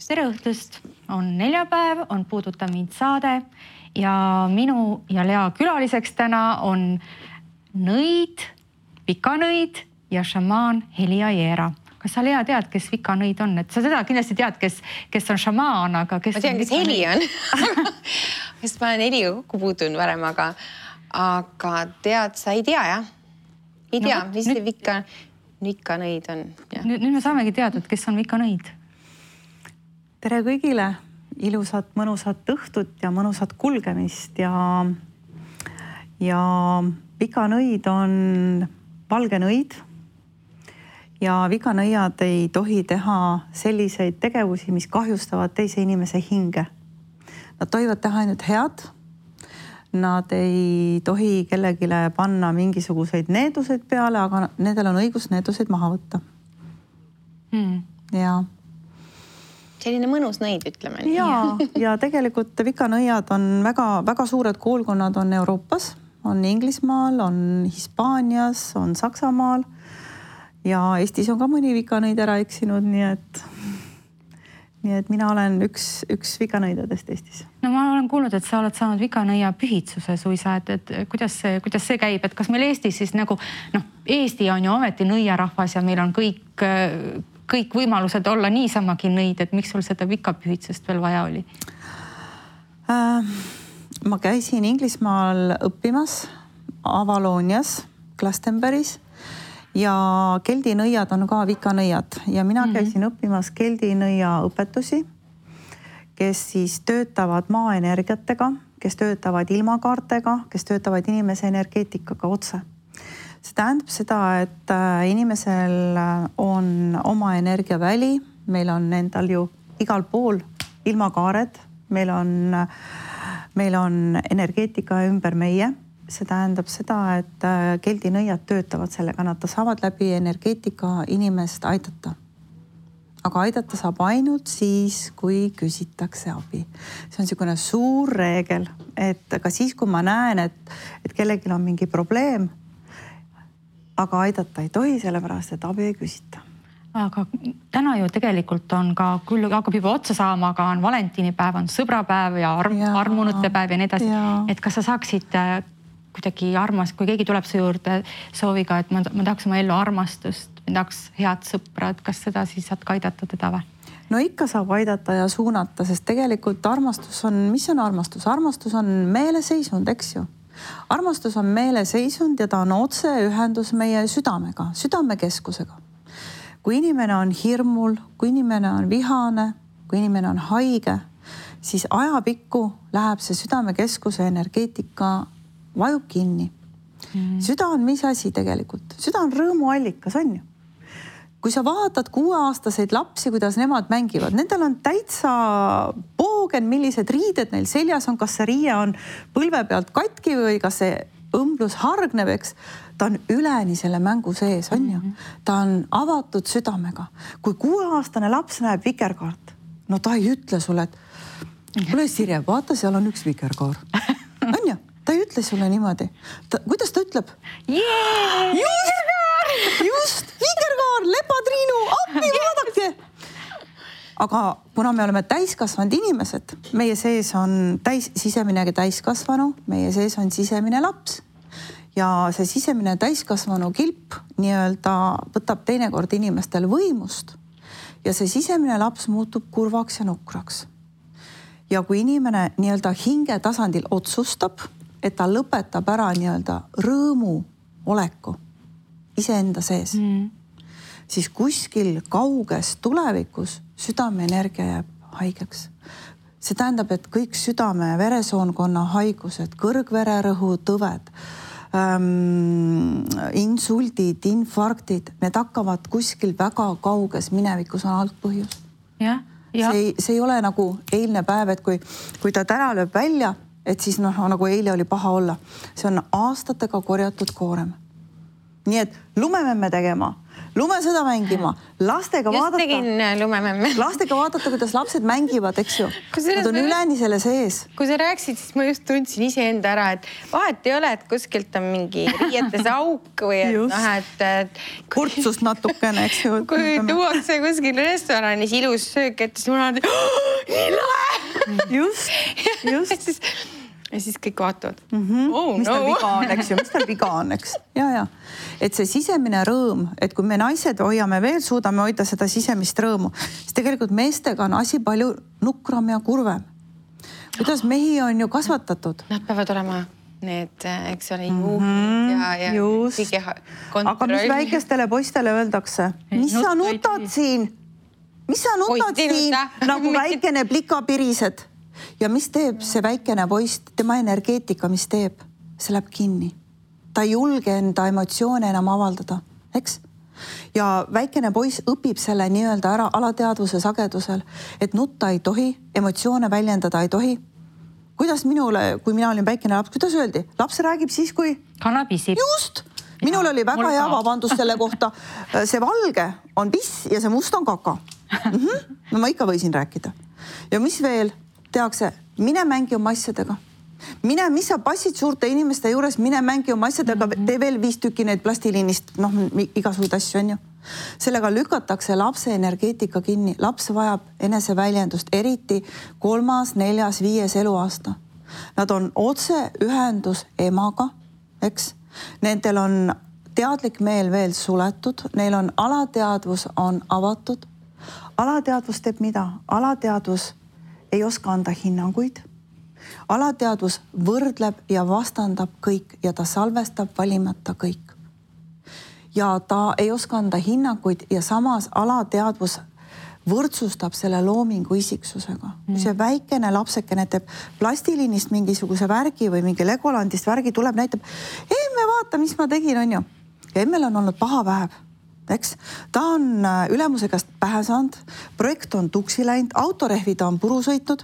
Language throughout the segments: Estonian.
tere õhtust! On neljapäev, on Puuduta mind saade ja minu ja Lea külaliseks täna on nõid, vikanõid ja šamaan Heli Aiera. Kas sa, Lea, tead, kes vikanõid on? Et sa seda kindlasti tead, kes on šamaan, aga kes... Ma tean, kes Heli on. Sest ma olen Heliga kokku puutunud varem, aga tead, sa ei tea, jah? Ei tea, mis see vikanõid on. Nüüd me saamegi teada, et kes on vikanõid. Tere kõigile, ilusat, mõnusat õhtut ja mõnusat kulgemist ja vikanõid on valge nõid ja vikanõiad ei tohi teha selliseid tegevusi, mis kahjustavad teise inimese hinge. Nad tohivad teha ainult head. Nad ei tohi kellegile panna mingisuguseid needuseid peale, aga nendel on õigus needuseid maha võtta. Ja selline mõnus nõid, ütleme. Ja tegelikult vikanõiad on väga suured koolkonnad on Euroopas, on Inglismaal, on Hispaanias, on Saksamaal ja Eestis on ka mõni vikanõid ära eksinud, nii et mina olen üks vikanõidadest Eestis. No ma olen kuulnud, et sa oled saanud vikanõia pühitsuse suisa, et kuidas see käib, et kas meil Eestis siis nagu, Eesti on ju ometi nõiarahvas ja meil on kõik võimalused olla niisamagi nõid, et miks sul seda vikapühitsust veel vaja oli? Ma käisin Inglismaal õppimas Avalonias, Glastonbury's ja keldinõiad on ka vikanõiad ja mina käisin õppimas keldinõia õpetusi, kes siis töötavad maaenergiatega, kes töötavad ilmakaartega, kes töötavad inimese energeetikaga otse. See tähendab seda, et inimesel on oma energiaväli, meil on endal ju igal pool ilmakaared, meil on energeetika ümber meie. See tähendab seda, et keldinõiad töötavad sellega, nad saavad läbi energeetika inimest aidata. Aga aidata saab ainult siis, kui küsitakse abi. See on niisugune suur reegel, et ka siis, kui ma näen, et kellelgi on mingi probleem, aga aidata ei tohi, sellepärast, et abi ei küsita. Aga täna ju tegelikult on ka, küll hakkab juba otsa saama, aga on valentinipäev, on sõbrapäev ja armunute päev ja nii edasi. Et kas sa saaksid kuidagi kui keegi tuleb su juurde sooviga, et ma tahaks oma ellu armastust, ma tahaks head sõpra, et kas seda siis saad ka aidata teda või? No ikka saab aidata ja suunata, sest tegelikult armastus on, mis on armastus? Armastus on meeleseisund, eks ju? Armastus on meeleseisund ja ta on otse ühendus meie südamega, südamekeskusega. Kui inimene on hirmul, kui inimene on vihane, kui inimene on haige, siis ajapikku läheb see südamekeskuse energeetika vajub kinni. Süda on mis asi tegelikult? Süda on rõõmuallikas, on ju? Kui sa vaatad 6-aastaseid lapsi, kuidas nemad mängivad, nendel on täitsa poogen, millised riided neil seljas on, kas see riie on põlve pealt katki või kas see õmblus hargneb, eks. Ta on üleni selle mängu sees, on ju. Ta on avatud südamega. Kui 6-aastane laps näeb vikerkaart, no ta ei ütle sulle, et kuule Sirje, vaata, seal on üks vikerkaar. On ju? Ta ei ütle sulle niimoodi. Kuidas ta ütleb? Just, vikerkaar, lepatriinu, appi, vaadake! Aga kuna me oleme täiskasvanud inimesed, meie sees on sisemine täiskasvanu, meie sees on sisemine laps. Ja see sisemine täiskasvanu kilp nii-öelda võtab teinekord inimestel võimust ja see sisemine laps muutub kurvaks ja nukraks. Ja kui inimene nii-öelda hinge tasandil otsustab, et ta lõpetab ära nii-öelda rõõmu oleku iseenda sees, siis kuskil kauges tulevikus südameenergia jääb haigeks. See tähendab, et kõik südame veresoonkonna haigused, kõrgvererõhu tõved, insuldid, infarktid, need hakkavad kuskil väga kauges minevikus on algpõhjus. See ei ole nagu eilne päev, et kui ta täna lööb välja, et siis nagu eile oli paha olla. See on aastatega korjatud koorem. Nii et lumeme me tegema, lumesõda mängima, lastega vaadata, kuidas lapsed mängivad, eks ju. Nad on üleni selle sees. Kui sa rääksid, siis ma just tundsin iseenda ära, et vahet ei ole, et kuskilt on mingi riietes auk või et kurtsust natukene, eks ju. Kui tuuakse kuskil restoranis ilus söök, et siis mul on nii lahe. Just. Ja siis kõik vaatavad. Mis tal viga on, eks ju, mis tal viga on, eks. Ja. Et see sisemine rõõm, et kui me naised hoiame veel, suudame hoida seda sisemist rõõmu, siis tegelikult meestega on asi palju nukram ja kurvem. Kuidas mehi on ju kasvatatud? Nad peavad olema need, eks ole, juhid ja kõige kontroll. Aga mis väikestele poistele öeldakse? Mis sa nutad siin? Nagu väikene plikapirised. Ja mis teeb see väikene poist, tema energeetika, mis teeb? See läheb kinni. Ta ei julge enda emotsioone enam avaldada, eks? Ja väikene poiss õpib selle nii-öelda ära alateadvuse sagedusel, et nutta ei tohi, emotsioone väljendada ei tohi. Kuidas minule, kui mina olin väikene laps, kuidas öeldi? Laps räägib siis, kui... Kana pisib. Just! Minul oli väga hea vabandus selle kohta. See valge on piss ja see must on kaka. No ma ikka võisin rääkida. Ja mis veel? Tehakse, mine mängi oma asjadega. Mis sa passid suurte inimeste juures, mine mängi oma asjadega, tee veel 5 tükki neid plastiliinist, igasuguseid asju on ju. Sellega lükatakse lapse energeetika kinni. Laps vajab eneseväljendust, eriti 3., 4., 5. eluaasta. Nad on otse ühendus emaga, eks? Nendel on teadlik meel veel suletud, neil on alateadvus on avatud. Alateadvus teeb mida? Alateadvus ei oska anda hinnanguid. Alateadvus võrdleb ja vastandab kõik ja ta salvestab valimata kõik. Ja ta ei oska anda hinnanguid ja samas alateadvus võrdsustab selle loomingu isiksusega. Kui see väikene lapsekene teeb plastiliinist mingisuguse värgi või mingi Legolandist värgi tuleb, näitab, emme vaata, mis ma tegin, on ju. Ja emmel on olnud paha päev. Eks? Ta on ülemuse käest pähe saanud, projekt on tuksi läinud, autorehvi ta on puru sõitnud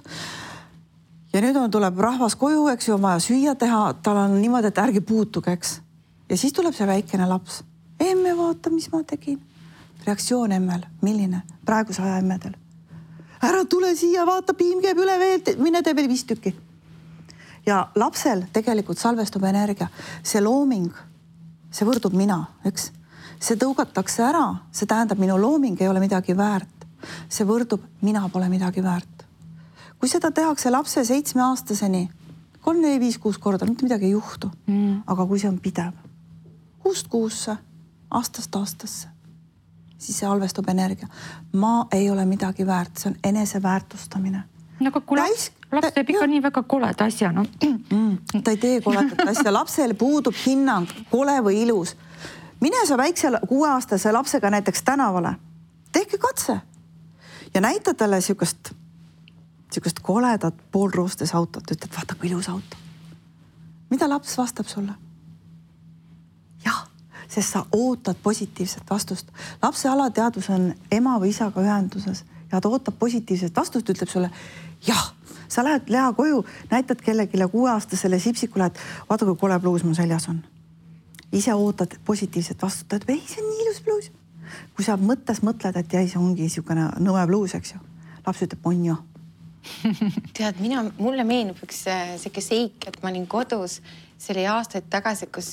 ja nüüd tuleb rahvas koju, eks ju, on vaja süüa teha, tal on niimoodi, et ärgi puutuge, eks. Ja siis tuleb see väikene laps. Emme vaata, mis ma tegin. Reaktsioon emmel, milline? Praeguse aja emmedel. Ära tule siia, vaata, piim käib üle veel, mine tee veel 5 tükki. Ja lapsel tegelikult salvestub energia. See looming, see võrdub mina, eks? See tõugatakse ära, see tähendab, minu looming ei ole midagi väärt. See võrdub, mina pole midagi väärt. Kui seda tehakse lapse 7-aastaseni, 3, 4, 5, 6 korda, mitte midagi ei juhtu. Aga kui see on pidev, 6 kuusse, aastast aastasse, siis see halvestub energia. Ma ei ole midagi väärt, see on eneseväärtustamine. Aga kui laps teeb ikka nii väga koleda asja, no. Ta ei tee koledat asja, lapsel puudub hinnang, kole või ilus. Mine sa väikse 6-aastase lapsega näiteks tänavale. Tehke katse. Ja näita talle siukest koledat poolroostes autot. Ütled, vaata kui ilus auto. Mida laps vastab sulle? Jah, sest sa ootad positiivset vastust. Lapse alateadvus on ema või isaga ühenduses ja ta ootab positiivset vastust, ütleb sulle, jah, sa lähed Lea koju, näitad kellegile 6-aastasele sipsikule, et vaata kui kole pluus mu seljas on. Ise ootad positiivset vastutad, ei, see on nii ilus bluus. Kui sa mõttes mõtled, et jäi, see ongi niisugune nõue bluus, eks ju. Laps ütleb, on ju. Tead, mulle meenub üks selline seik, et ma olin kodus, see oli aastaid tagasi, kus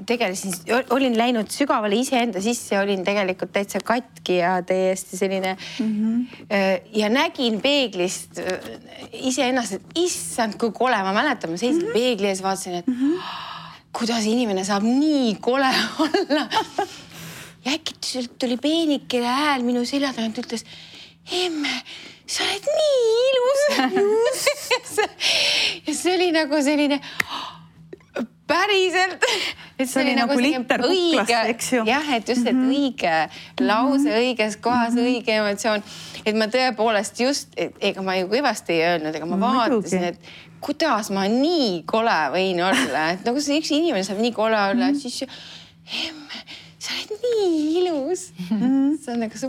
tegelesin, olin läinud sügavale iseenda sisse, olin tegelikult täitsa katki ja täiesti selline ja nägin peeglist iseennast, et issand, kui kole, ma mäletan, ma seisin peegli ees, vaatasin, et kuidas inimene saab nii kole olla. Ja äkki tuli peenikene hääl minu selja tagant, ütles, emme, sa oled nii ilus. Ja see oli nagu selline päriselt. See oli nagu litter kuklast, eks ju. Jah, et just, et õige lause, õiges kohas, õige emotsioon. Et ma tõepoolest just, ega ma ju kõvasti ei öelnud, ega ma vaatasin, et kuidas ma nii kole võin olla. Et nagu see üks inimene saab nii kole olla, siis emme, sa oled nii ilus.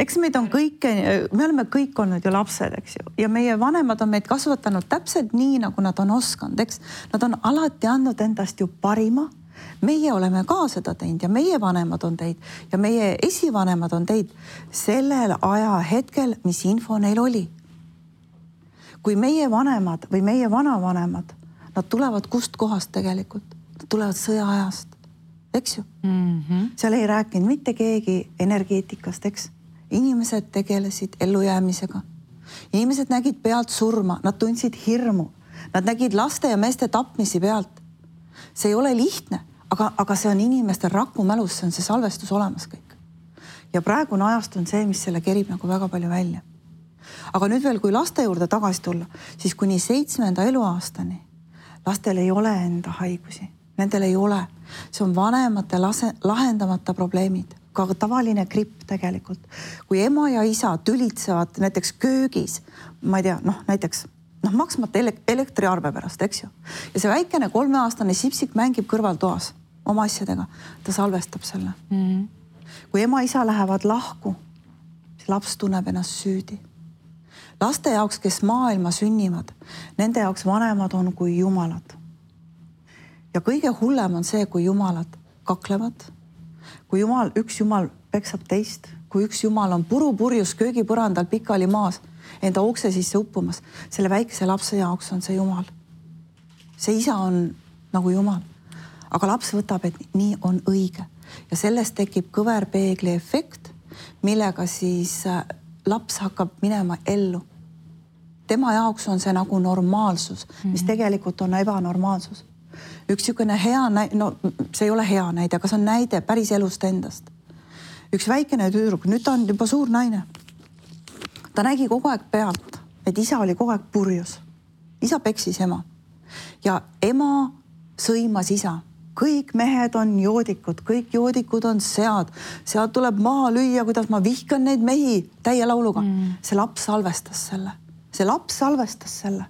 Eks meid on kõike, me oleme kõik olnud ju lapsed, eks ju. Ja meie vanemad on meid kasvatanud täpselt nii, nagu nad on oskanud, eks. Nad on alati andnud endast ju parima meie oleme ka seda teinud ja meie vanemad on teinud ja meie esivanemad on teinud sellel ajahetkel, mis info neil oli. Kui meie vanemad või meie vanavanemad, nad tulevad kust kohast tegelikult? Nad tulevad sõjaajast, eks ju? Seal ei rääkinud mitte keegi energeetikast, eks? Inimesed tegelesid ellujäämisega. Inimesed nägid pealt surma, nad tundsid hirmu. Nad nägid laste ja meeste tapmisi pealt. See ei ole lihtne, aga see on inimestel rakkumälus, see on see salvestus olemas kõik. Ja praegune ajast on see, mis selle kerib nagu väga palju välja. Aga nüüd veel, kui laste juurde tagasi tulla, siis kuni 7. eluaastani lastel ei ole enda haigusi. Nendel ei ole. See on vanemate lahendamata probleemid. Ka tavaline gripp tegelikult. Kui ema ja isa tülitsevad näiteks köögis, ma ei tea, näiteks maksmata elektriarve pärast, eks ju. Ja see väikene 3-aastane sipsik mängib kõrvaltoas oma asjadega. Ta salvestab selle. Kui ema-isa lähevad lahku, siis laps tunneb ennast süüdi. Laste jaoks, kes maailma sünnivad, nende jaoks vanemad on kui jumalad. Ja kõige hullem on see, kui jumalad kaklevad, kui üks jumal peksab teist, kui üks jumal on purjus köögipõrandal pikali maas, enda ukse sisse uppumas, selle väikese lapse jaoks on see jumal. See isa on nagu jumal. Aga laps võtab, et nii on õige. Ja sellest tekib kõverpeegli efekt, millega siis laps hakkab minema ellu. Tema jaoks on see nagu normaalsus, mis tegelikult on ebanormaalsus. Üks niisugune hea näide, see ei ole hea näide, aga see on näide päris elust endast. Üks väikene tüdruk, nüüd ta on juba suur naine. Ta nägi kogu aeg pealt, et isa oli kogu aeg purjus. Isa peksis ema. Ja ema sõimas isa. Kõik mehed on joodikud, kõik joodikud on sead. Sead tuleb maha lüüa, kuidas ma vihkan neid mehi täie lauluga. See laps salvestas selle. See laps salvestas selle.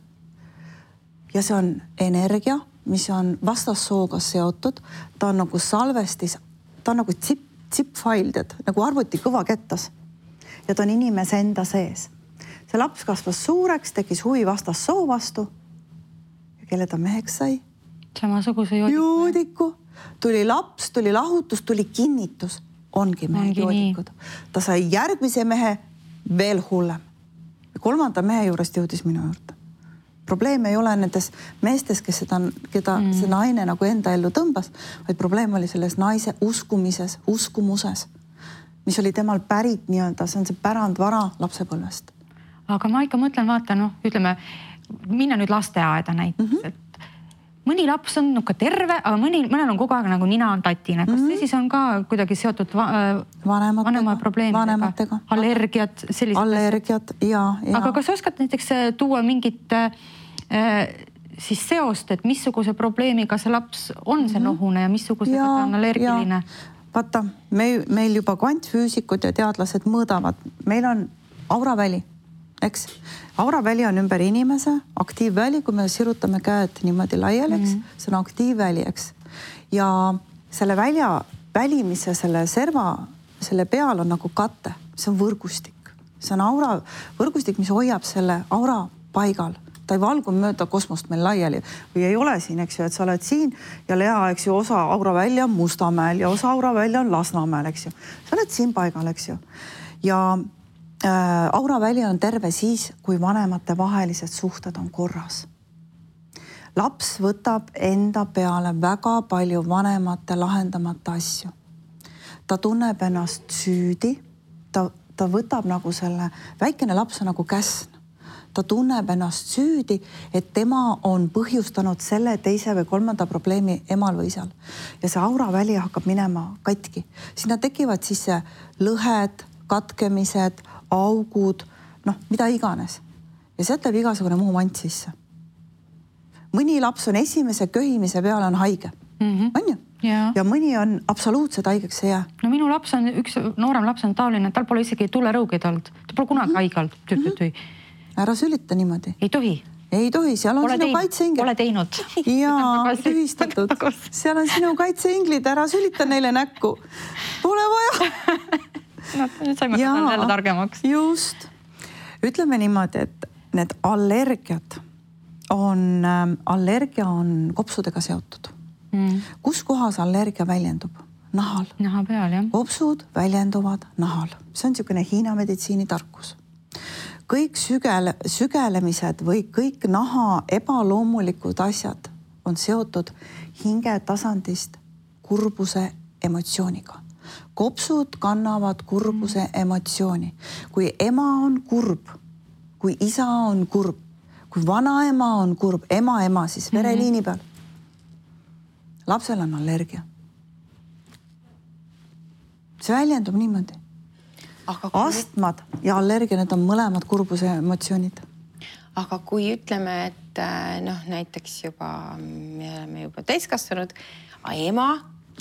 Ja see on energia, mis on vastassooga seotud. Ta on nagu salvestis, ta on nagu zip-file, nagu arvuti kõva kettas. Ja ta on inimese enda sees. See laps kasvas suureks, tekis huvi vastassoo vastu. Ja kelle ta meheks sai? Samasuguse joodiku. Tuli laps, tuli lahutus, tuli kinnitus. Ongi mehe joodikud. Ta sai järgmise mehe veel hullem. 3. mehe juurest jõudis minu juurde. Probleem ei ole nendes meestes, keda see naine nagu enda ellu tõmbas, vaid probleem oli selles naise uskumuses, mis oli temal pärit nii-öelda, see on see pärandvara lapsepõlvest. Aga ma ikka mõtlen, vaata, ütleme, minna nüüd lasteaeda näiteks, et mõni laps on terve, aga mõnel on kogu aeg nagu nina on tatine. Kas see siis on ka kuidagi seotud vanema probleemidega? Allergiad, sellised? Allergiad, jaa. Aga kas oskad näiteks tuua mingit siis seost, et missuguse probleemiga see laps on see nohune ja missugusega ta on allergiline? Vaata, meil juba kvantfüüsikud ja teadlased mõõdavad. Meil on auraväli, eks? Auraväli on ümber inimese, aktiivväli, kui me sirutame käed niimoodi laiali, eks? See on aktiivväli, eks? Ja selle välimise, selle serva, selle peal on nagu kate. See on võrgustik. See on aura võrgustik, mis hoiab selle aura paigal. Ta ei valgu mööda kosmost meil laiali või ei ole siin, eks ju, et sa oled siin ja Lea, eks ju, osa auraväli on Mustamäel ja osa auraväli on Lasnamäel, eks ju. Sa oled siin paigal, eks ju. Ja auraväli on terve siis, kui vanemate vahelised suhted on korras. Laps võtab enda peale väga palju vanemate lahendamata asju. Ta tunneb ennast süüdi, ta võtab nagu selle, väikene laps on nagu käsn. Ta tunneb ennast süüdi, et tema on põhjustanud selle 2. või 3. probleemi emal või isal. Ja see auraväli hakkab minema katki. Sinna tekivad siis lõhed, katkemised, augud, mida iganes. Ja sealt läheb igasugune muu mant sisse. Mõni laps on esimese köhimise peale on haige. On ju? Ja mõni on absoluutselt haigeks ei jää. No minu laps on, üks noorem laps on taoline, tal pole isegi tulerõugid olnud. Ta pole kunagi haige olnud. Ära sülita niimoodi. Ei tohi. Ei tohi, seal on sinu kaitseinglid. Pole teinud. Jaa, tühistatud. Seal on sinu kaitseinglid, ära sülita neile näkku. Pole vaja. Nüüd saime jälle targemaks. Just. Ütleme niimoodi, et need allergia on kopsudega seotud. Kus kohas allergia väljendub? Nahal. Naha peal, jah. Kopsud väljenduvad nahal. See on niisugune Hiina meditsiini tarkus. Kõik sügelemised või kõik naha ebaloomulikud asjad on seotud hinge tasandist kurbuse emotsiooniga. Kopsud kannavad kurbuse emotsiooni. Kui ema on kurb, kui isa on kurb, kui vanaema on kurb, ema siis vereliini peal, lapsel on allergia. See väljendub niimoodi. Astmad ja allergia, need on mõlemad kurbuse emotsioonid. Aga kui ütleme, et näiteks me oleme juba täiskasvanud, ema,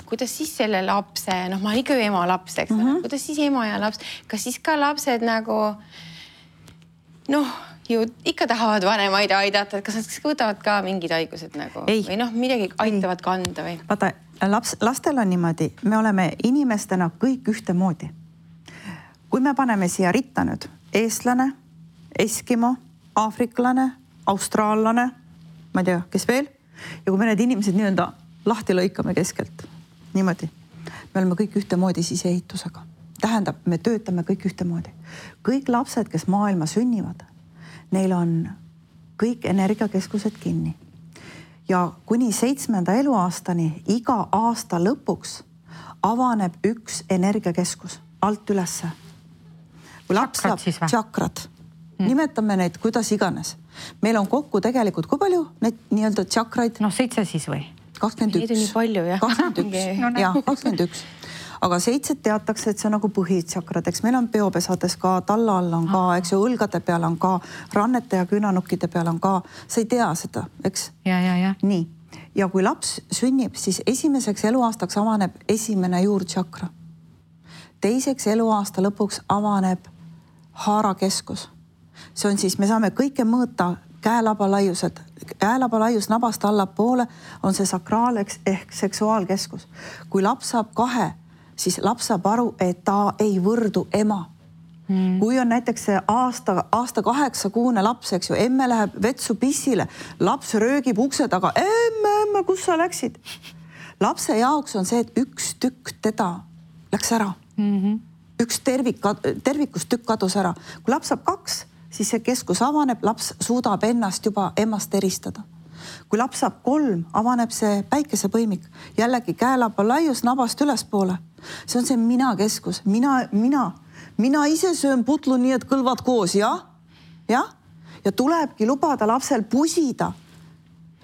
kuidas siis selle lapse, ma olen ikka ju ema laps, eks kuidas siis ema ja laps, kas siis ka lapsed nagu ju ikka tahavad vanemaid aidata, et kas nad võtavad ka mingid haigused nagu või midagi aitavad kanda või? Vaata, lastel on niimoodi, me oleme inimestena kõik ühtemoodi. Kui me paneme siia ritta nüüd eestlane, eskimo, aafriklane, austraallane, ma ei tea, kes veel, ja kui me need inimesed nii-öelda lahti lõikame keskelt, niimoodi, me oleme kõik ühtemoodi siseehitusega. Tähendab, me töötame kõik ühtemoodi. Kõik lapsed, kes maailma sünnivad, neil on kõik energiakeskused kinni. Ja kuni 7. eluaastani iga aasta lõpuks avaneb üks energiakeskus alt ülesse. Kui laps saab tšakrad, nimetame neid kuidas iganes. Meil on kokku tegelikult, kui palju neid nii-öelda tšakraid? 7 siis või? 21. Neid on nii palju, jah. 21. Aga 7 teatakse, et see on nagu põhitšakrad, eks meil on peopesades ka, talla all on ka, eks ju, õlgade peal on ka, rannete ja künanukkide peal on ka, sa ei tea seda, eks? Ja. Nii, ja kui laps sünnib, siis esimeseks eluaastaks avaneb esimene juurtšakra. Teiseks eluaasta lõpuks avaneb haarakeskus. See on siis, me saame kõike mõõta käelaba laiused. Käelaba laius nabast allapoole on see sakraal ehk seksuaalkeskus. Kui laps saab 2, siis laps saab aru, et ta ei võrdu ema. Kui on näiteks see aasta 8-kuune laps, eks ju, emme läheb vetsu pissile, laps röögib ukse taga, emme, kus sa läksid? Lapse jaoks on see, et üks tükk teda läks ära. Üks tervikust tükk kadus ära. Kui laps saab 2, siis see keskus avaneb, laps suudab ennast juba emast eristada. Kui laps saab 3, avaneb see päikesepõimik. Jällegi käelaba laius nabast ülespoole. See on see mina keskus. Mina ise söön putlu nii, et kõlvad koos, jah? Ja tulebki lubada lapsel pusida.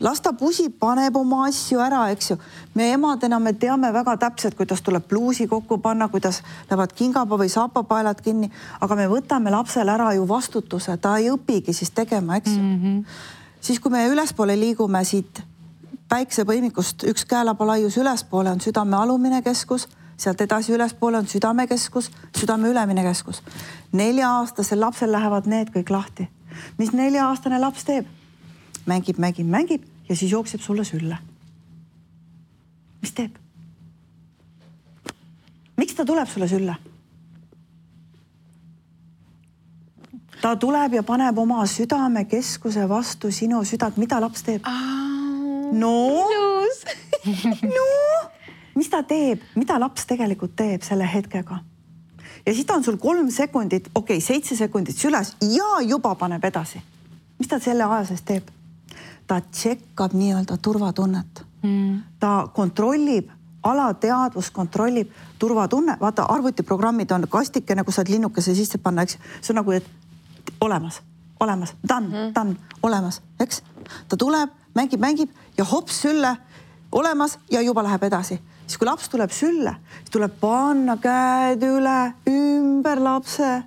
Las ta pusib, paneb oma asju ära, eks ju. Me emadena me teame väga täpselt, kuidas tuleb pluusi kokku panna, kuidas lähevad kingaba või saapapaelad kinni, aga me võtame lapsel ära ju vastutuse, ta ei õpigi siis tegema, eks ju. Siis kui me ülespoole liigume siit päiksepõimikust, üks käelaba laius ülespoole on südame alumine keskus, sealt edasi ülespoole on südamekeskus, südame ülemine keskus. 4-aastasel lapsel lähevad need kõik lahti. Mis 4-aastane laps teeb? Mängib ja siis jookseb sulle sülle. Mis teeb? Miks ta tuleb sulle sülle? Ta tuleb ja paneb oma südamekeskuse vastu sinu südant. Mida laps teeb? Mis ta teeb? Mida laps tegelikult teeb selle hetkega? Ja siis ta on sul 3 sekundit, 7 sekundit süles ja juba paneb edasi. Mis ta selle aja sees teeb? Ta tšekkab nii-öelda turvatunnet. Ta kontrollib, alateadvus kontrollib turvatunne. Vaata, arvutiprogrammid on kastikene, kus saad linnukese sisse panna, eks? See on nagu, et olemas, done, olemas, eks? Ta tuleb, mängib ja hops sülle, olemas ja juba läheb edasi. Siis kui laps tuleb sülle, siis tuleb panna käed üle, ümber lapse.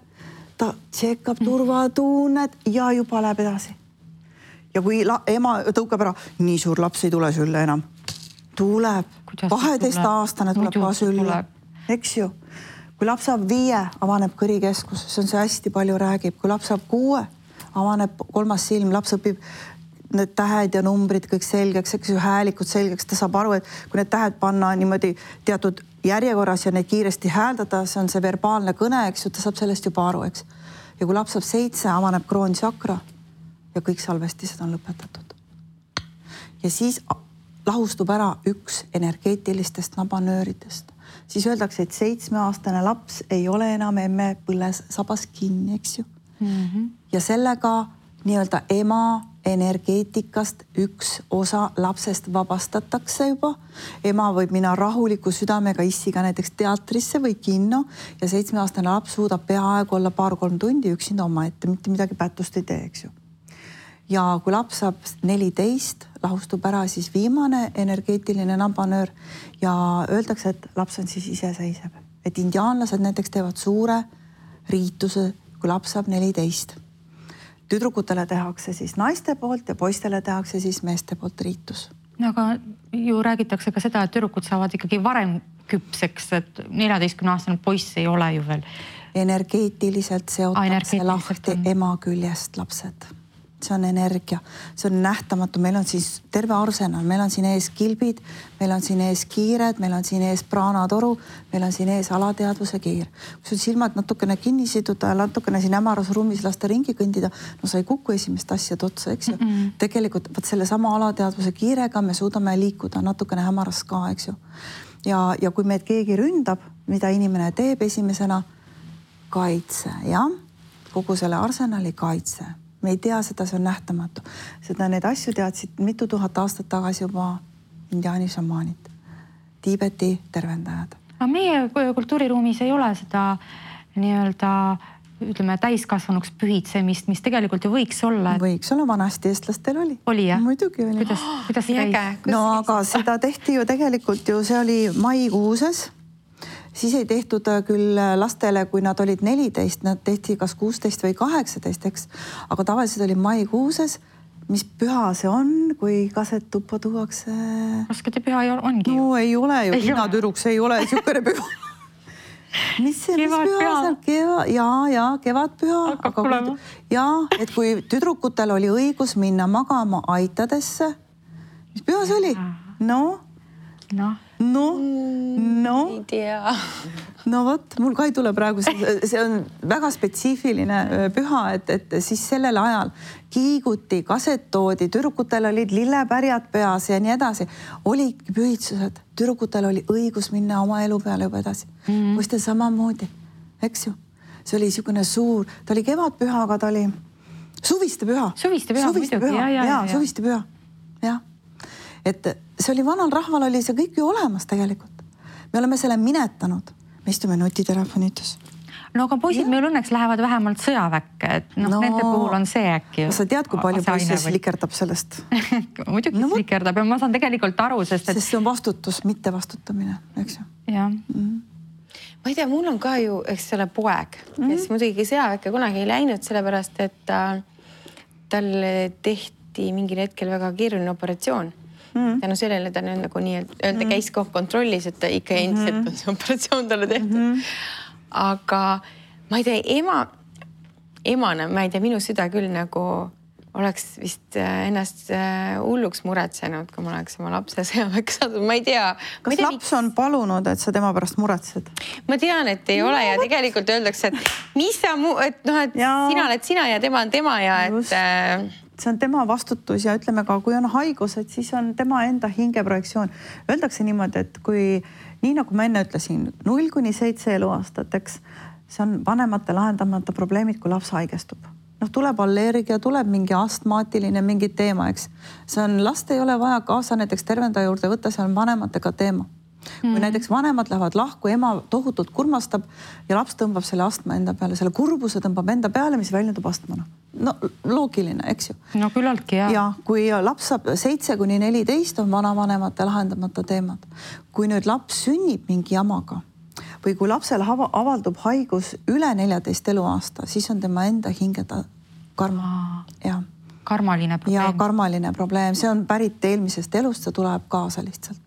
Ta tšekkab turvatunnet ja juba läheb edasi. Ja kui ema tõukab ära, nii suur laps ei tule sülle enam. Tuleb, 12-aastane tuleb ka sülle, eks ju. Kui laps saab 5, avaneb kõrikeskus, see on see hästi palju räägib. Kui laps saab 6, avaneb 3. silm, laps õpib need tähed ja numbrid kõik selgeks, eks ju, häälikud selgeks. Ta saab aru, et kui need tähed panna niimoodi teatud järjekorras ja neid kiiresti hääldada, see on see verbaalne kõne, eks ju, ta saab sellest juba aru, eks. Ja kui laps saab 7, avaneb kroonsakra ja kõik salvestised on lõpetatud. Ja siis lahustub ära üks energeetilistest nabanööridest, siis öeldakse, et 7-aastane laps ei ole enam emme põlles sabas kinni, eks ju. Ja sellega nii-öelda ema energeetikast üks osa lapsest vabastatakse juba. Ema võib minna rahuliku südamega issiga näiteks teatrisse või kinno ja 7-aastane laps suudab peaaegu olla 2-3 tundi üksinda omaette, mitte midagi pättust ei tee, eks ju. Ja kui laps saab 14, lahustub ära siis viimane energeetiline nabanöör ja öeldakse, et laps on siis iseseisev. Et indiaanlased näiteks teevad suure riituse, kui laps saab 14. Tüdrukutele tehakse siis naiste poolt ja poistele tehakse siis meeste poolt riitus. No, aga ju räägitakse ka seda, et tüdrukud saavad ikkagi varem küpseks, et 14-aastane poiss ei ole ju veel. Energeetiliselt seotakse lahti ema küljest lapsed. See on energia, see on nähtamatu. Meil on siis terve arsenal, meil on siin ees kilbid, meil on siin ees kiired, meil on siin ees praanatoru, meil on siin ees alateadvuse kiir. Kui sul silmad natukene kinni siduda ja natukene siin hämaras ruumis lasta ringi kõndida, no sa ei kuku esimest asjad otsa, eks ju. Tegelikult võt selle sama alateadvuse kiirega me suudame liikuda natukene hämaras ka, eks ju. Ja kui meid keegi ründab, mida inimene teeb esimesena, kaitse, jah? Kogu selle arsenali kaitse. Me ei tea seda, see on nähtamatu. Seda need asju teadsid mitu tuhat aastat tagasi juba indiaani šamaanid, Tiibeti tervendajad. Aga meie kultuuriruumis ei ole seda nii-öelda, ütleme, täiskasvanuks pühitsemist, mis tegelikult ju võiks olla. Võiks olla, vanasti eestlastel oli. Oli, jah? Muidugi oli. Kuidas käis? No aga seda tehti ju tegelikult ju, see oli maikuuses. Siis ei tehtud küll lastele, kui nad olid 14, nad tehti kas 16 või 18, eks. Aga tavaliselt oli maikuuses, mis püha see on, kui kaset tuppa tuuakse? Raskete püha ongi ju. No ei ole ju, hinnatüruks ei ole niisugune püha. Mis püha seal? Ja, kevadpüha. Ja, et kui tüdrukutel oli õigus minna magama aitadesse, mis püha see oli? Ei tea. No vot, mul ka ei tule praegu, see on väga spetsiifiline püha, et siis sellel ajal kiiguti, kaset toodi, tüdrukutel olid lillepärjad peas ja nii edasi. Oli pühitsused, tüdrukutel oli õigus minna oma elu peale juba edasi. Poistel samamoodi, eks ju. See oli niisugune suur, ta oli kevadpüha, aga ta oli suviste püha. Suviste püha, jah. Et see oli vanal rahval, oli see kõik ju olemas tegelikult. Me oleme selle minetanud. Me istume nutitelefonides. No aga poisid meil õnneks lähevad vähemalt sõjaväkke, et nende puhul on see äkki. Sa tead, kui palju poisse slikerdab sellest? Muidugi slikerdab ja ma saan tegelikult aru, sest see on vastutus, mitte vastutamine, eks ju. Jah. Ma ei tea, mul on ka ju, eks selle poeg, kes muidugi sõjaväkke kunagi ei läinud, sellepärast, et tal tehti mingil hetkel väga keeruline operatsioon. Tänu sellele ta nagu nii-öelda käis kontrollis, et ta ikka endiselt on see operatsioon talle tehtud. Aga ma ei tea, emana, ma ei tea, minu süda küll nagu oleks vist ennast hulluks muretsenud, kui ma oleks oma lapse sõjaväkke saadud. Ma ei tea. Kas laps on palunud, et sa tema pärast muretsed? Ma tean, et ei ole ja tegelikult öeldakse, et mis sa sina oled sina ja tema on tema ja et... See on tema vastutus ja ütleme ka, kui on haigused, siis on tema enda hingeprojektsioon. Öeldakse niimoodi, et kui, nii nagu ma enne ütlesin, 0-7 eluaastat, eks, see on vanemate lahendamata probleemid, kui laps haigestub. Tuleb allergia, tuleb mingi astmaatiline, mingi teema, eks. See on, last ei ole vaja kaasa näiteks tervendaja juurde võtta, see on vanematega teema. Kui näiteks vanemad lähevad lahku, ema tohutult kurmastab ja laps tõmbab selle astma enda peale, selle kurbuse tõmbab enda peale, mis väljendub astmana. No loogiline, eks ju. No küllaltki, jah. Ja kui laps saab 7-14 on vanavanemate lahendamata teemad. Kui nüüd laps sünnib mingi jamaga või kui lapsel avaldub haigus üle 14 eluaasta, siis on tema enda hingeda karma. Ja. Karmaline probleem. Ja karmaline probleem. See on pärit eelmisest elust, see tuleb kaasa lihtsalt.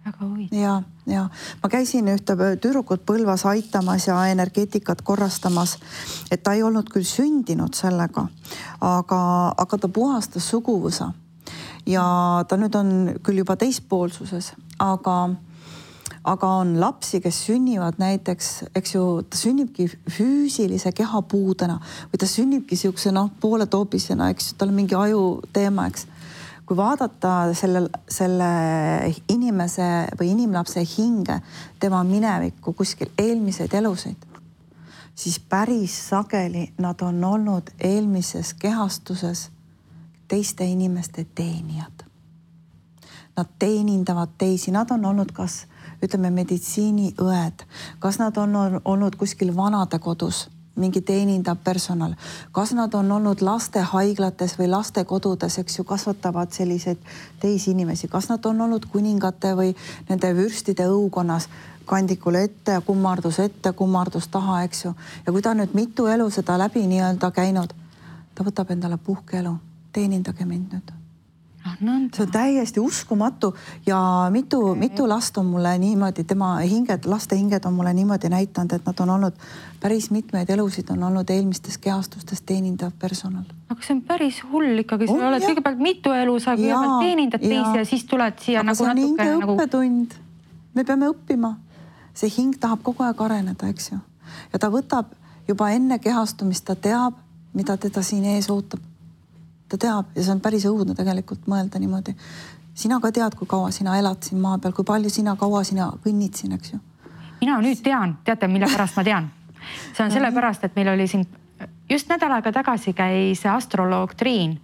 Väga huvitav. Ja. Ma käisin ühte tüdrukut Põlvas aitamas ja energeetikat korrastamas, et ta ei olnud küll sündinud sellega, aga ta puhastas suguvõsa. Ja ta nüüd on küll juba teispoolsuses, aga on lapsi, kes sünnivad näiteks, eks ju, ta sünnibki füüsilise kehapuudena või ta sünnibki siukse poole toopisena, eks ju, tal on mingi aju teema, eks. kui vaadata selle inimese või inimlapse hinge, tema minevikku, kuskil eelmiseid elusid, siis päris sageli nad on olnud eelmises kehastuses teiste inimeste teenijad. Nad teenindavad teisi, nad on olnud kas, ütleme, meditsiiniõed, kas nad on olnud kuskil vanadekodus, mingi teenindav personal, kas nad on olnud lastehaiglates või lastekodudes, eks ju, kasvatavad selliseid teisi inimesi, kas nad on olnud kuningate või nende vürstide õukonnas, kandikule ette ja kummardus taha, eks ju. Ja kui ta nüüd mitu elu seda läbi nii-öelda käinud, ta võtab endale puhkeelu, teenindage mind nüüd. See on täiesti uskumatu ja mitu last on mulle niimoodi, tema laste hinged on mulle niimoodi näitanud, et nad on olnud päris mitmeid elusid, on olnud eelmistes kehastustes teenindav personal. Aga see on päris hull ikkagi, sa oled kõigepealt mitu elu, sa kõigepealt teenindad teisi ja siis tuled siia aga see on hinge õppetund. Me peame õppima. See hing tahab kogu aeg areneda, eks ju. Ja ta võtab juba enne kehastumist, ta teab, mida teda siin ees ootab. Ta teab ja see on päris õudne tegelikult mõelda niimoodi. Sina ka tead, kui kaua sina elad siin maa peal, kui palju kaua sina kõnnid siin, eks ju. Mina nüüd tean, teate, mille pärast ma tean. See on sellepärast, et meil oli siin just nädal aega tagasi käis astroloog Triin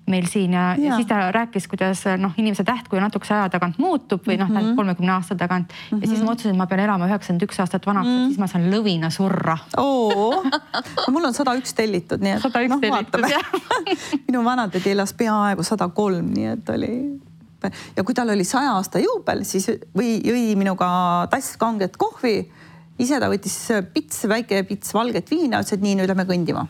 meil siin ja siis ta rääkis, kuidas inimese tähtkuju natukese aja tagant muutub või 30 aasta tagant ja siis ma otsusin, et ma pean elama 91 aastat vanaks, et siis ma saan lõvina surra. Mul on 101 tellitud, nii et 101 tellitud, jah. Minu vanatädi elas peaaegu 103, nii et oli... Ja kui tal oli 100 aasta juubel, siis jõi minuga tass kanget kohvi. Ise ta võttis väike pits valget viina, ütles, et nii, nüüd lähme kõndima.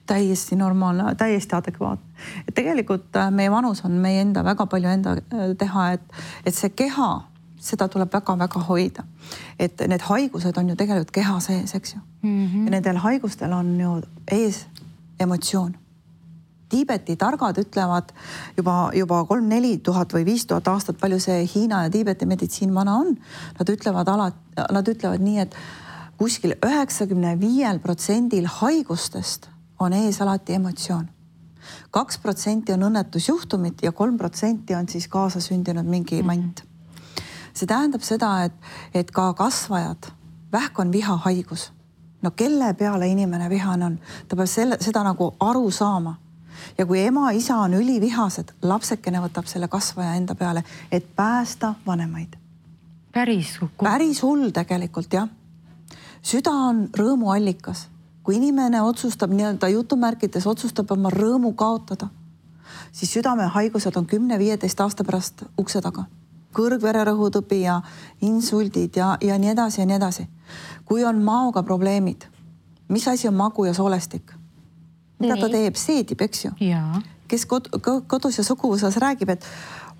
Täiesti normaalne, täiesti adekvaatne. Et tegelikult meie vanus on meie enda, väga palju enda teha, et see keha, seda tuleb väga-väga hoida. Et need haigused on ju tegelikult keha sees, eks ju. Ja nendel haigustel on ju ees emotsioon. Tiibeti targad ütlevad juba 3-4 tuhat või 5000 aastat, palju see Hiina ja Tiibeti meditsiin vana on. Nad ütlevad nii, et kuskil 95% haigustest on ees alati emotsioon. 2% on õnnetusjuhtumid ja 3% on siis kaasasündinud mingi mant. See tähendab seda, et ka kasvajad, vähk on vihahaigus. No kelle peale inimene vihane on? Ta peab seda nagu aru saama. Ja kui ema, isa on ülivihased, lapsekene võtab selle kasvaja enda peale, et päästa vanemaid. Päris hull tegelikult, jah. Süda on rõõmuallikas. Kui inimene otsustab, nii-öelda jutumärkides otsustab oma rõõmu kaotada, siis südamehaigused on 10-15 aasta pärast ukse taga. Kõrgvererõhutõbi ja insuldid ja nii edasi ja nii edasi. Kui on maoga probleemid, mis asi on magu ja soolestik? Mida ta teeb? Seedib, eks ju? Kes kodus ja suguvõsas räägib, et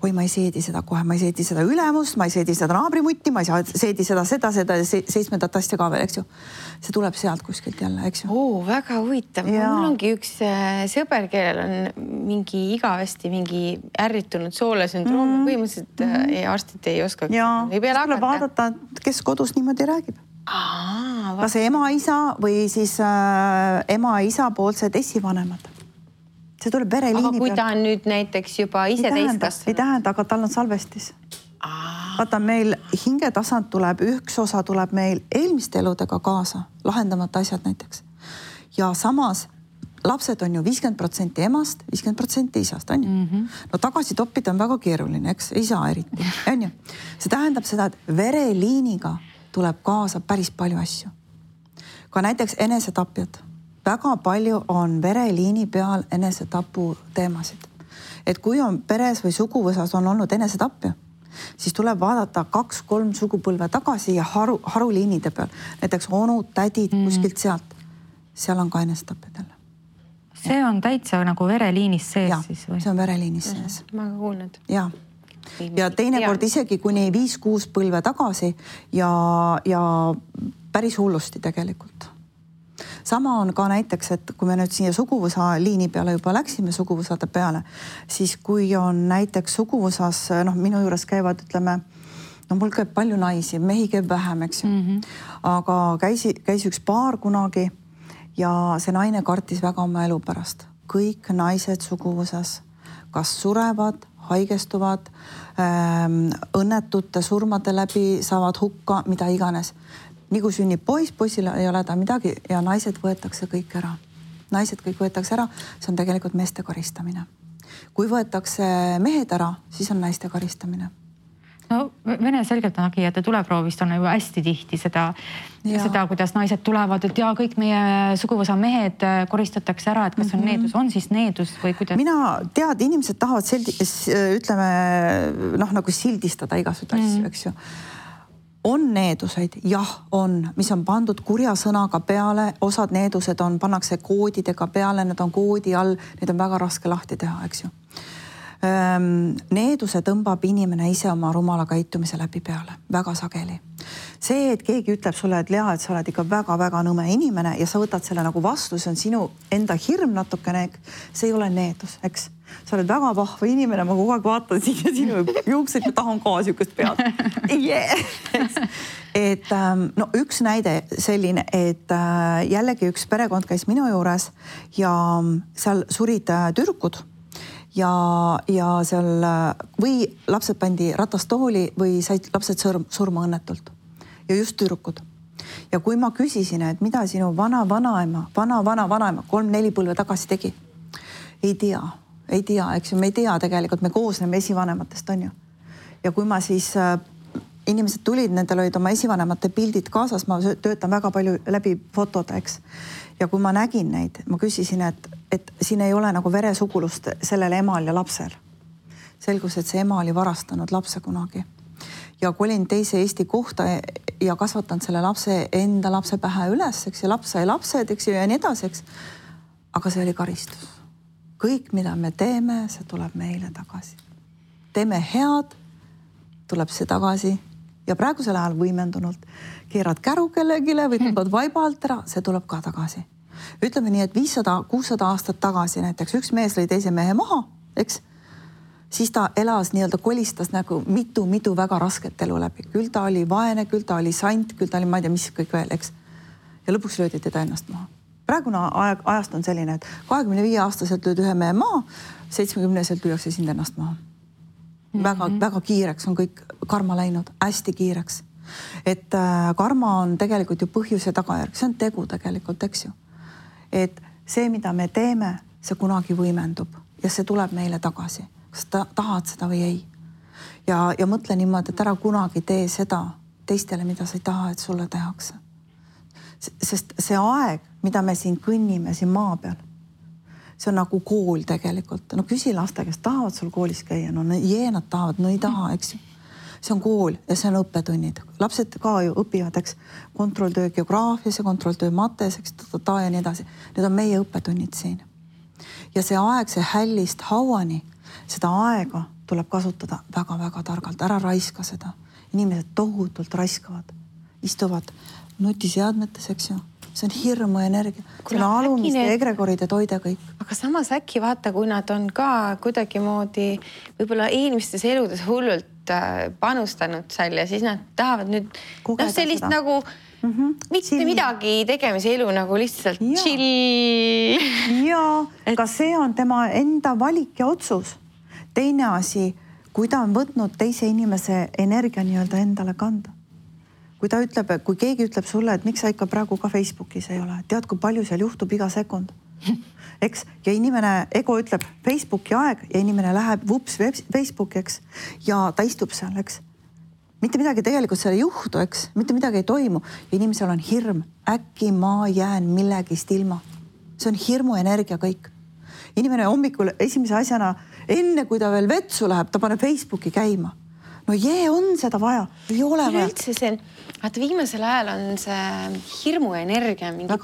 oi, ma ei seedi seda kohe, ma ei seedi seda ülemust, ma ei seedi seda naabrimutti, ma ei seedi seda 7. asja ka veel, eks ju? See tuleb sealt kuskilt jälle, eks ju? Väga huvitav. Mul ongi üks sõber, kellel on mingi igavesti mingi ärritunud soolesündroom. Põhimõtteliselt arstid ei oska. Ei pea tuleb vaadata, kes kodus niimoodi räägib. Kas ema-isa või siis ema-isa poolsed esivanemad. See tuleb vereliini peal. Aga kui ta on nüüd näiteks juba ise täiskasvanud? Ei tähenda, aga tal on salvestis. Vaata, meil hingetasand tuleb, üks osa tuleb meil eelmiste eludega kaasa, lahendamata asjad näiteks. Ja samas lapsed on ju 50% emast, 50% isast, on ju? No tagasi toppida on väga keeruline, eks? Isa eriti, on ju? See tähendab seda, et vereliiniga tuleb kaasa päris palju asju. Ka näiteks enesetapjad. Väga palju on vereliini peal enesetapu teemasid. Et kui on peres või suguvõsas on olnud enesetapja, siis tuleb vaadata 2-3 sugupõlve tagasi ja haruliinide peal. Näiteks onud, tädid kuskilt sealt. Seal on ka enesetapjad jälle. See on täitsa nagu vereliinis sees siis või? See on vereliinis sees. Ma ka kuulnud. Ja teinekord isegi kuni 5-6 põlve tagasi ja päris hullusti tegelikult. Sama on ka näiteks, et kui me nüüd siia suguvõsa liini peale juba läksime suguvõsade peale, siis kui on näiteks suguvõsas, minu juures käivad, ütleme, mul käib palju naisi, mehi käib vähem, eks ju. Aga käis üks paar kunagi ja see naine kartis väga oma elu pärast. Kõik naised suguvõsas kas surevad, haigestuvad, õnnetute surmade läbi saavad hukka, mida iganes. Nii kui sünnib poiss, poissil ei ole ta midagi ja naised võetakse kõik ära. Naised kõik võetakse ära, see on tegelikult meeste karistamine. Kui võetakse mehed ära, siis on naiste karistamine. No Vene selgeltnägijate tuleproovist on juba hästi tihti seda, kuidas naised tulevad, et kõik meie suguvõsa mehed koristatakse ära, et kas on needus, on siis needus või kuidas? Mina tead, inimesed tahavad nagu sildistada igasuguseid asju, eks ju. On needuseid, jah, on, mis on pandud kurja sõnaga peale, osad needused pannakse koodidega peale, need on koodi all, need on väga raske lahti teha, eks ju. Needuse tõmbab inimene ise oma rumala käitumise läbi peale, väga sageli. See, et keegi ütleb sulle, et Lea, et sa oled ikka väga-väga nõme inimene ja sa võtad selle nagu vastu, see on sinu enda hirm natukene, see ei ole needus, eks. Sa oled väga vahva inimene, ma kogu aeg vaatan siin ja sinu juuksed ja tahan ka siukest pead. Et no üks näide selline, et jällegi üks perekond käis minu juures ja seal surid tüdrukud ja seal või lapsed pandi ratastooli või said lapsed surma õnnetult ja just tüdrukud. Ja kui ma küsisin, et mida sinu vana-vanaema 3-4 põlve tagasi tegi, ei tea, eks ju, me ei tea tegelikult, me koosneme esivanematest, on ju. Ja kui ma siis, inimesed tulid, nendel olid oma esivanemate pildid kaasas, ma töötan väga palju läbi fotode, eks. Ja kui ma nägin neid, ma küsisin, et siin ei ole nagu veresugulust sellel emal ja lapsel. Selgus, et see ema oli varastanud lapse kunagi. Ja kui olin teise Eesti kohta ja kasvatanud selle lapse enda lapse pähe üles, eks, ja laps sai lapsed, eks, ja nii edasi, eks. Aga see oli karistus. Kõik, mida me teeme, see tuleb meile tagasi. Teeme head, tuleb see tagasi. Ja praegusel ajal võimendunult keerad käru kellegile või tõmbad vaiba alt ära, see tuleb ka tagasi. Ütleme nii, et 500-600 aastat tagasi näiteks üks mees lõi teise mehe maha, eks? Siis ta elas nii-öelda kolistas nagu mitu väga rasket elu läbi. Küll ta oli vaene, küll ta oli sant, küll ta oli ma ei tea, mis kõik veel, eks? Ja lõpuks löödi teda ennast maha. Praegune ajast on selline, et 25-aastaselt lööd ühe mehe maha, 70-selt lüüakse sind ennast maha. Väga kiireks on kõik karma läinud, hästi kiireks. Et karma on tegelikult ju põhjus ja tagajärg, see on tegu tegelikult, eks ju. Et see, mida me teeme, see kunagi võimendub ja see tuleb meile tagasi. Kas tahad seda või ei? Ja mõtle niimoodi, et ära kunagi tee seda teistele, mida sa ei taha, et sulle tehakse. Sest see aeg, mida me siin kõnnime siin maa peal, see on nagu kool tegelikult. No küsi laste, kes tahavad sul koolis käia, no nad tahavad, no ei taha, eks ju. See on kool ja see on õppetunnid. Lapsed ka ju õpivad, eks, kontrolltöö geograafias ja kontrolltöö mates, eks, ja nii edasi. Need on meie õppetunnid siin. Ja see aeg, see hällist hauani, seda aega tuleb kasutada väga-väga targalt. Ära raiska seda. Inimesed tohutult raiskavad, istuvad nutiseadmetes, eks ju. See on hirmu energia. See on alumiste egregoride toide kõik. Aga samas äkki vaata, kui nad on ka kuidagi moodi võib-olla eelmistes eludes hullult panustanud seal ja siis nad tahavad nüüd sellist seda. Nagu mitte midagi tegemise elu nagu lihtsalt chill. Ja, ka see on tema enda valik ja otsus. Teine asi, kui ta on võtnud teise inimese energia nii-öelda endale kanda. Kui ta ütleb, kui keegi ütleb sulle, et miks sa ikka praegu ka Facebookis ei ole, tead, kui palju seal juhtub iga sekund. Eks? Ja inimene, ego ütleb Facebooki aeg ja inimene läheb vups Facebooki, eks? Ja ta istub seal, eks? Mitte midagi tegelikult seal ei juhtu, eks? Mitte midagi ei toimu. Ja inimesel on hirm. Äkki ma jään millegist ilma. See on hirmu energia kõik. Inimene hommikul esimese asjana, enne kui ta veel vetsu läheb, ta paneb Facebooki käima. No on seda vaja, ei ole vaja. Üldse see, vaata viimasel ajal on see hirmuenergia mingi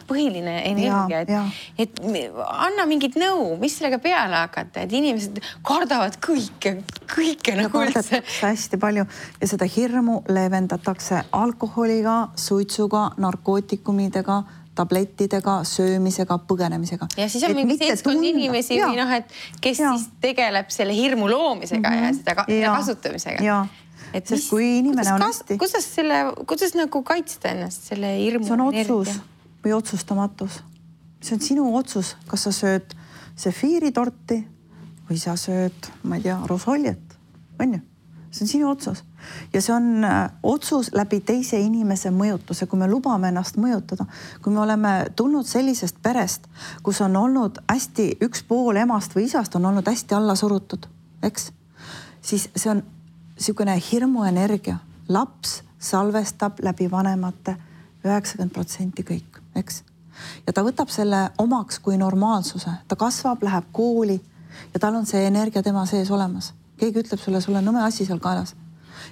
põhiline energia, et anna mingit nõu, mis sellega peale hakata, et inimesed kardavad kõike nagu üldse. Hästi palju ja seda hirmu leevendatakse alkoholiga, suitsuga, narkootikumidega, tablettidega, söömisega, põgenemisega. Ja siis on mingi seltskond inimesi, et kes siis tegeleb selle hirmu loomisega ja seda kasutamisega. Ja, sest kui inimene on hästi... Kuidas nagu kaitsta ennast selle hirmu energia? See on otsus või otsustamatus. See on sinu otsus, kas sa sööd sefiiritorti või sa sööd, ma ei tea, rosoljet, on ju? See on sinu otsus ja see on otsus läbi teise inimese mõjutuse, kui me lubame ennast mõjutada, kui me oleme tulnud sellisest perest, kus on olnud hästi üks pool emast või isast on olnud hästi alla surutud, eks? Siis see on niisugune hirmuenergia. Laps salvestab läbi vanemate 90% kõik, eks? Ja ta võtab selle omaks kui normaalsuse. Ta kasvab, läheb kooli ja tal on see energia tema sees olemas. Keegi ütleb sulle, sul on nõme asi seal kaelas.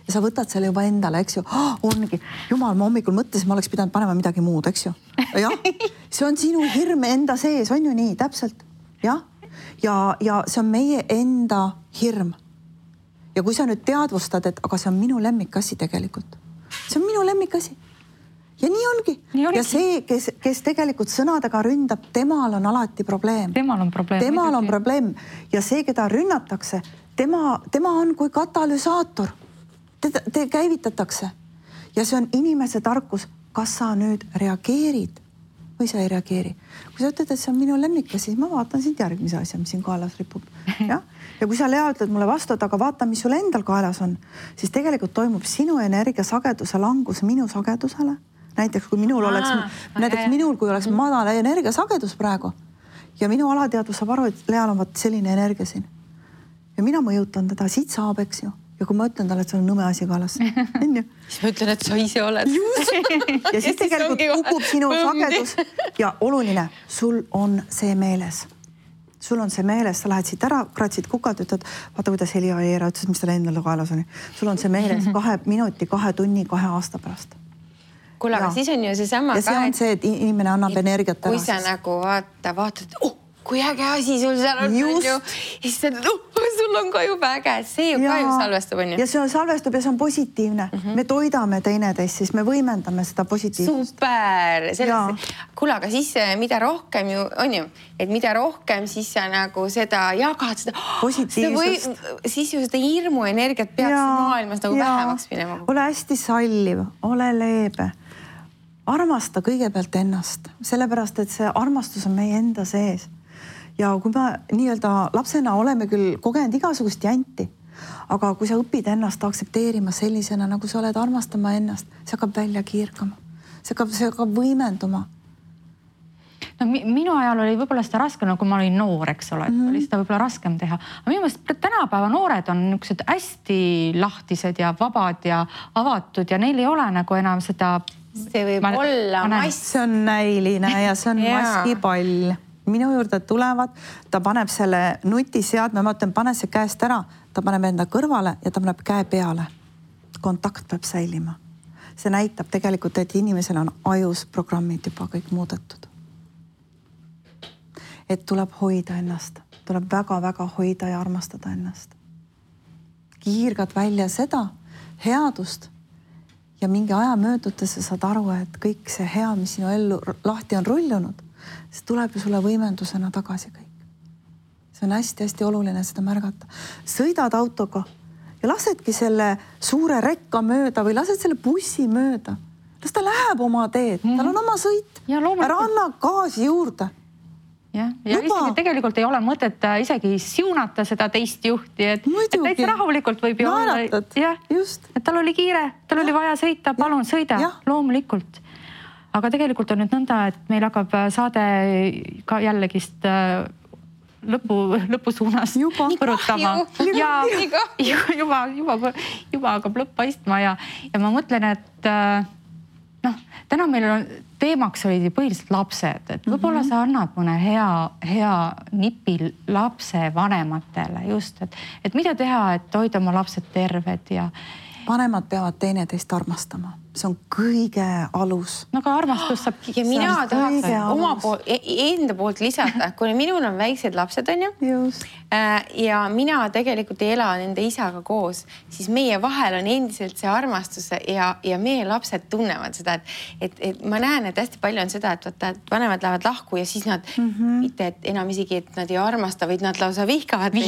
Ja sa võtad selle juba endale, eks ju. Ongi, jumal, ma hommikul mõtlesin, ma oleks pidanud panema midagi muud, eks ju. Ja, see on sinu hirm enda sees, on ju nii, täpselt. Ja see on meie enda hirm. Ja kui sa nüüd teadvustad, et aga see on minu lemmikasi tegelikult. See on minu lemmikasi. Ja nii ongi. Ja see, kes tegelikult sõnadega ründab, temal on alati probleem. Temal on probleem. Ja see, keda rünnatakse, tema on kui katalüsaator. Te käivitatakse. Ja see on inimese tarkus. Kas sa nüüd reageerid või sa ei reageeri? Kui sa ütled, et see on minu lemmika, siis ma vaatan sind järgmise asja, mis siin kaelas ripub. Ja kui sa, Lea, ütled mulle vastu, aga vaata, mis sul endal kaelas on, siis tegelikult toimub sinu energia sageduse langus minu sagedusele. Näiteks kui minul oleks madal energiasagedus praegu ja minu alateadvus saab aru, et Leal on selline energia siin. Ja mina mõjutan teda, siit saab, eks ju. Ja kui ma ütlen talle, et sul on nõme asi kaelas. Siis ma ütlen, et sa ise oled. Ja siis tegelikult kukub sinu sagedus ja oluline, sul on see meeles. Sul on see meeles, sa lähed siit ära, kratsid kukalt, ütled, vaata, kuidas Heli Aieera ütles, mis tal endale kaelas oli. Sul on see meeles 2 minuti, 2 tunni, 2 aasta pärast. Kuule, aga siis on ju see sama ja see on see, et inimene annab energiat ära. Kui sa nagu vaatad, kui äge asi sul seal on, ja siis sa ütled, sul on ka juba äge, see ju ka ju salvestub, on ju. Ja see on salvestub ja see on positiivne. Me toidame teineteist, siis me võimendame seda positiivsust. Super! Kuule, aga siis mida rohkem ju, on ju, et mida rohkem siis sa nagu seda jagad, seda positiivsust. Siis ju seda hirmu energiat peaks maailmas nagu vähemaks minema. Ole hästi salliv, ole leebe. Armasta kõigepealt ennast, sellepärast, et see armastus on meie enda sees. Ja kui me nii-öelda lapsena oleme küll kogenud igasugust janti, aga kui sa õpid ennast aksepteerima sellisena, nagu sa oled armastama ennast, see hakkab välja kiirkama. See hakkab võimenduma. No, minu ajal oli võib-olla seda raskem, kui ma olin noor, eks ole, oli seda võib-olla raskem teha. Aga minu meelest tänapäeva noored on niisugused hästi lahtised ja vabad ja avatud ja neil ei ole nagu enam seda... See võib olla mass. See on näiline ja see on maskipall. Minu juurde tulevad, ta paneb selle nutiseadme, ma ütlen, pane see käest ära, ta paneb enda kõrvale ja ta paneb käe peale. Kontakt peab säilima. See näitab tegelikult, et inimesel on ajus programmid juba kõik muudetud. Et tuleb hoida ennast, tuleb väga-väga hoida ja armastada ennast. Kiirgad välja seda headust ja mingi aja möödutes sa saad aru, et kõik see hea, mis sinu ellu lahti on rullunud, see tuleb ju sulle võimendusena tagasi kõik. See on hästi-hästi oluline seda märgata. Sõidad autoga ja lasedki selle suure rekka mööda või lased selle bussi mööda. Las ta läheb oma teed, tal on oma sõit. Ära anna gaasi juurde. Ja isegi tegelikult ei ole mõtet isegi siunata seda teist juhti, et täitsa rahulikult võib ju olla. Et tal oli kiire, tal oli vaja sõita, palun sõida, loomulikult. Aga tegelikult on nüüd nõnda, et meil hakkab saade ka jällegist lõpusuunas põrutama. Juba hakkab lõpp paistma ja ma mõtlen, et täna meil on teemaks olid põhiliselt lapsed, et võib-olla sa annad mõne hea nipi lapse vanematele just, et mida teha, et hoida oma lapsed terved ja vanemad peavad teineteist armastama. See on kõige alus. No ka armastus saab... Ja mina tahaks enda poolt lisada, kui minul on väiksed lapsed, on ju? Ja mina tegelikult ei ela nende isaga koos, siis meie vahel on endiselt see armastus ja meie lapsed tunnevad seda, et ma näen, et hästi palju on seda, et vanemad lähevad lahku ja siis nad mitte enam isegi, et nad ei armasta, vaid nad lausa vihkavad.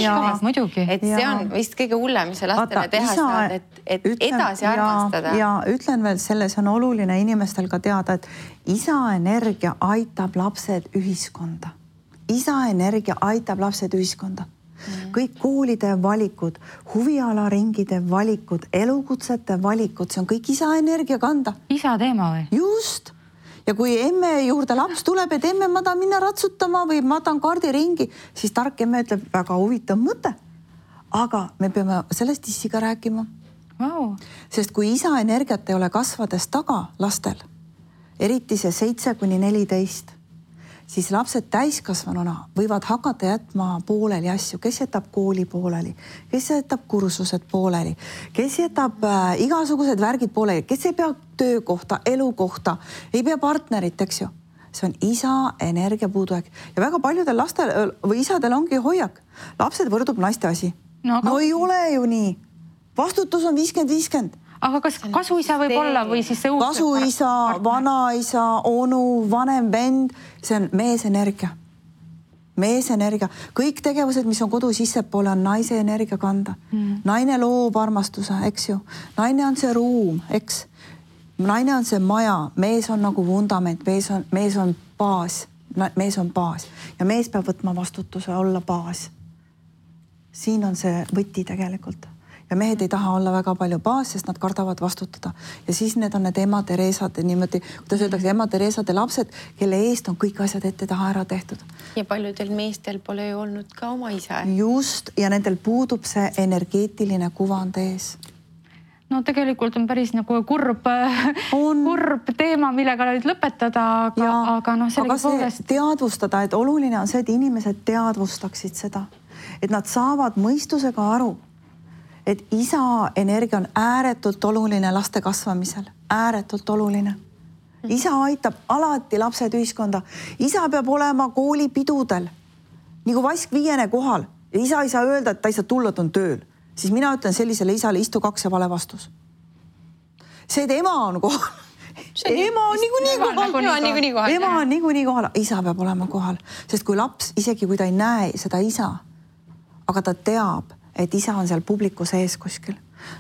Muidugi. Et see on vist kõige hullem, mis sa lastele teha saad, et edasi armastada. Ja ütlen veel selles on oluline inimestel ka teada, et isa energia aitab lapsed ühiskonda. Isa energia aitab lapsed ühiskonda. kõik koolide valikud, huvialaringide valikud, elukutsete valikud, see on kõik isa energia kanda. Isa teema või? Just. Ja kui emme juurde laps tuleb, et emme, ma tahan minna ratsutama või ma tahan kaardiringi, siis tark emme ütleb, väga huvitav mõte. Aga me peame sellest issiga rääkima. Wow. Sest kui isa energiat ei ole kasvades taga lastel, eriti see 7–14, siis lapsed täiskasvanuna võivad hakata jätma pooleli asju, kes jätab kooli pooleli, kes jätab kursused pooleli, kes jätab igasugused värgid pooleli, kes ei pea töökohta, elukohta, ei pea partnerit, eks ju. See on isa energia puudujääk ja väga paljudel lastel või isadel ongi hoiak. Lapsed võrdub naiste asi. No ei ole ju nii. Vastutus on 50-50. Aga kas kasuisa võib olla või siis see uus? Kasuisa, vanaisa, onu, vanem vend, see on meesenergia. Meesenergia. Kõik tegevused, mis on kodu sissepoole, on naise energia kanda. Naine loob armastuse, eks ju. Naine on see ruum, eks. Naine on see maja, mees on nagu vundament, mees on baas. Mees on baas ja mees peab võtma vastutuse olla baas. Siin on see võti tegelikult. Ja mehed ei taha olla väga palju baas, sest nad kardavad vastutada. Ja siis need on need ema Teresad, niimoodi, kuidas öeldakse, ema Teresade lapsed, kelle eest on kõik asjad ette taha ära tehtud. Ja paljudel meestel pole ju olnud ka oma isa. Just, ja nendel puudub see energeetiline kuvand ees. No tegelikult on päris nagu kurb teema, millega nüüd lõpetada, aga no sellega poolest. Teadvustada, et oluline on see, et inimesed teadvustaksid seda, et nad saavad mõistusega aru, et isa energia on ääretult oluline laste kasvamisel, ääretult oluline. Isa aitab alati lapsed ühiskonda. Isa peab olema koolipidudel, nagu vask 5. kohal. Ja isa ei saa öelda, et ta ei saa tulla, ta on tööl. Siis mina ütlen sellisele isale, istu 2 ja vale vastus. See, et ema on kohal. Ema on niikuinii kohal. Ema on niikuinii kohal. Isa peab olema kohal. Sest kui laps, isegi kui ta ei näe seda isa, aga ta teab, et isa on seal publiku sees kuskil,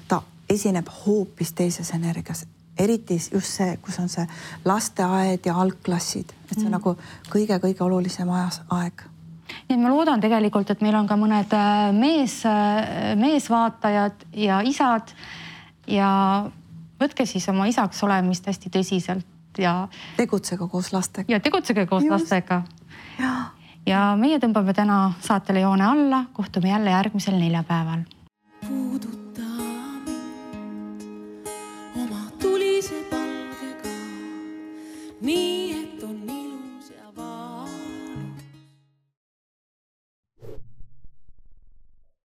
ta esineb hoopis teises energias. Eriti just see, kus on see lasteaed ja algklassid. Et see on nagu kõige olulisem aeg. Nii et ma loodan tegelikult, et meil on ka mõned meesvaatajad ja isad ja võtke siis oma isaks olemist hästi tõsiselt ja tegutsege koos lastega. Ja tegutsege koos lastega. Ja meie tõmbame täna saatele joone alla, kohtume jälle järgmisel neljapäeval.